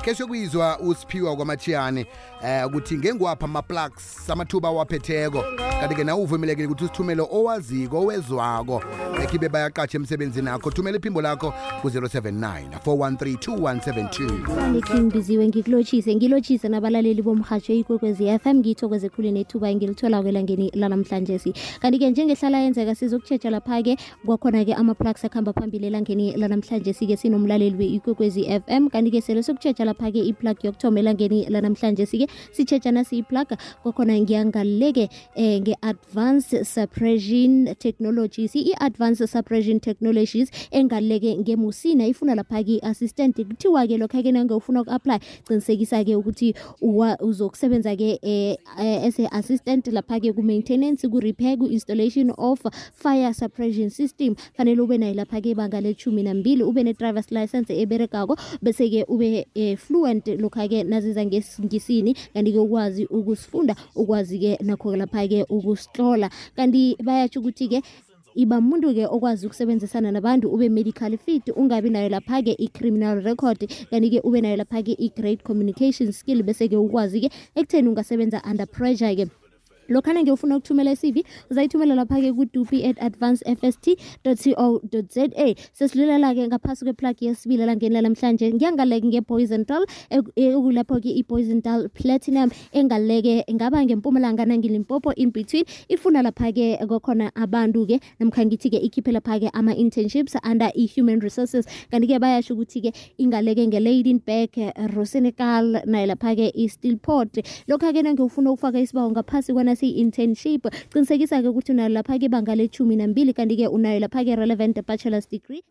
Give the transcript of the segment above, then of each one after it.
ke sokuyizwa uSiphiwa kwaMachiyane ukuthi ngengwapha ama-plugs amathuba waphetheko kanti ke nawe uvumelekile ukuthi usithumele owaziko owezwako ekhibe bayaqatsha emsebenzini akho thumela iphimbo lakho ku-079 413 King Biziwe ngilotshise nabalaleli bomhatsho ikwekwezi FM ngithokoze khulu nethuba engilithola kwelangeni lanamhlanje kanti ke njengehlala yenzeka sizokutshetsha lapha ke kwakhona ke ama-plugs akhamba phambili elangeni lanamhlanje ke sinomlaleli we-ikwekwezi FM kanti ke sele sokutshetsha lapha ke i-plug yokuthoma elangeni lanamhlanje ke sitshetsha nasi i-plug kwakhona ngiyangaleke nge-advanced suppression technologies i-advanced suppression technologies engaleke ngemusina ifuna lapha ke assistant kuthiwa ke lokho ke nangofuna uku-apply qinisekisa ke ukuthi uzokusebenza ke as a assistant lapha ke ku-maintenance ku-repair ku-installation of fire suppression system fanele ube nayo lapha ke ibanga le-12 ube ne-driver's license eberekako bese ke ube fluent lokho ke naziza ngesingisi kanti ke ukwazi ukusifunda ukwazi ke nakho lapha ke ukusihlola kanti bayatsho ukuthi ke iba umuntu ke okwazi ukusebenzisana nabantu ube medical fit ungabi nayo lapha ke i-criminal record kanti ke ube nayo lapha ke i-great communication skill bese ke ukwazi ke ekutheni ungasebenza under pressure ke lokhana ngiyofuna ukuthumela i-CV uzayithumela lapha ke ku-dupi@advancedfst.co.za sesilulela ke ngaphasi kweplug yesibili langeni lamhlanje ngiyangaleke ngePoisontal ekulapho ke iPoisontal Platinum engaleke ngaba ngempumalanga nangilimpopo in between ifuna lapha ke kokhona abantu ke namkha ngithi ke ikhiphe lapha ke ama-internships under i-human resources kanti ke bayasho ukuthi ke ingaleke ngeLadenburg Rosenekal nayo lapha ke i-Steelport lokho ke ngiyofuna ukufaka isibawo ngaphasi internship qinisekisa ke ukuthi unayo lapha ke ibanga le-12 kanti ke unayo lapha ke relevant bachelor's degree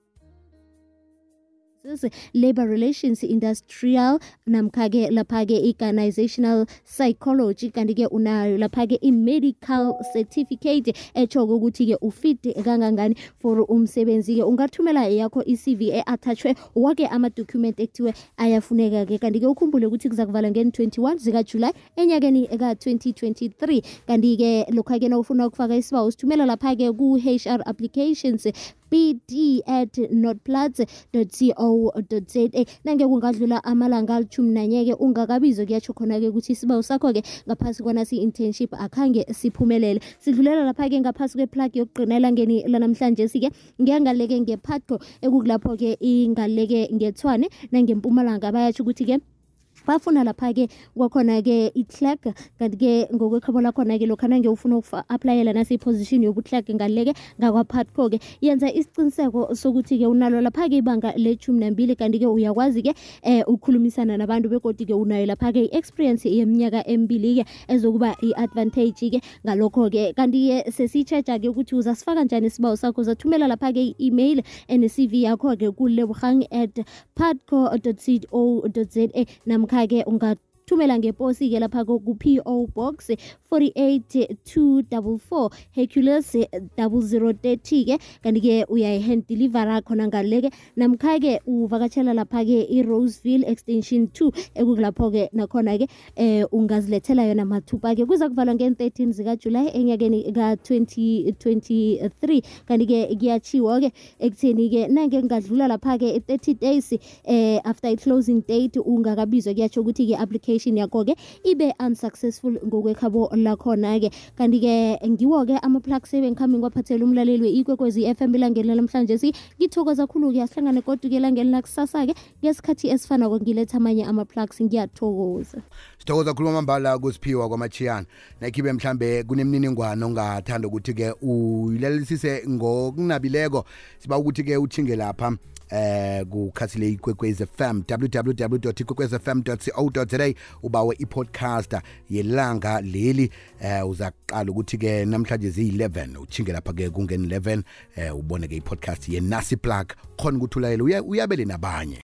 labor relations industrial namkha ke lapha ke organizational psychology kanti ke unayo lapha ke i-medical certificate etsho ukuthi ke ufit kangangani for umsebenzi ke ungathumela yakho i-CV attachwe wake ama-document ekuthiwe ayafuneka ke kanti ke ukhumbule ukuthi kuzakuvala nge-21 zikaJuly enyakeni ka-2023 kanti ke lokho ke nawufuna ukufaka isibawo usithumela lapha ke ku-HR applications bd@notplats.co.za nange kungadlula amalanga ali-11 ke ungakabizwa kuyatsho khona ke ukuthi isibawo sakho ke ngaphasi kwanasi internship akhange siphumelele sidlulela lapha ke ngaphasi kweplug yokugqinela ngeni lanamhlanje ke ngiyangaleke ngePhatco ekukulapho ke ingaleke ngeTshwane nangempumalanga bayatsho ukuthi ke bafuna lapha ke kwakhona ke i-clerk kanti ke ngokwekhabo lakhona ke lokho nange ufuna uku-applyela nasi position yobu-clerk ngaleke ngakwaPhatco ke yenza isiqiniseko sokuthi ke unalo lapha ke ibanga le-12 kanti ke uyakwazi ke ukukhulumisana nabantu begodi ke unayo lapha ke i-experience yeminyaka 2 ke ezokuba i-advantage ke ngalokho ke kanti ke sesitsheja ke ukuthi uzasifaka njani isibawo sakho uzathumela lapha ke i-email and-CV yakho ke ku-lebogang@patco.co.za namkha ke ungathumela ngeposi ke lapha ku-PO Box 48244 Hercules 0030 ke kanti ke uyayi-hand deliver khona ngaleke namkha ke uvakatshela lapha ke i-Roseville extension 2 ekukulapho ke nakhona ke ungazilethela yona mathupa ke kuza kuvalwa nge-13 zikaJuly enyakeni ka-2023 kanti ke kuyachiwo ke ekutheni ke nange kungadlula lapha ke 30 days after i-closing date ungakabizwa kuyatsho ukuthi ke application yakho ke ibe unsuccessful ngokwekhabo lakhona ke kanti ke ngiwo ke ama-plugs ebengikhambi ngiwaphathela umlaleli we-ikwekwezi FM elangeni namhlanje ngithokoza kakhulu ke asihlangane kodwa ke elangeni lakusasa ke ngesikhathi esifana ngiletha amanye ama-plugs ngiyathokoza sithokoza khuluma amambala kuSiphiwa kwaMachiyane nakhibe mhlambe kunemniningwane ongathanda ukuthi ke uyilalelisise ngokunabileko siba ukuthi ke uthinge lapha kukhasile ikwekwezi FM www.ikwekwezfm.co.za ubawe i-podcast yelanga leli uzaqala ukuthi ke namhlanje zi-11 uthinge lapha ke kungeni 11 ubone ke i-podcast yenasi plug khona ukuthi ulayele uyabele nabanye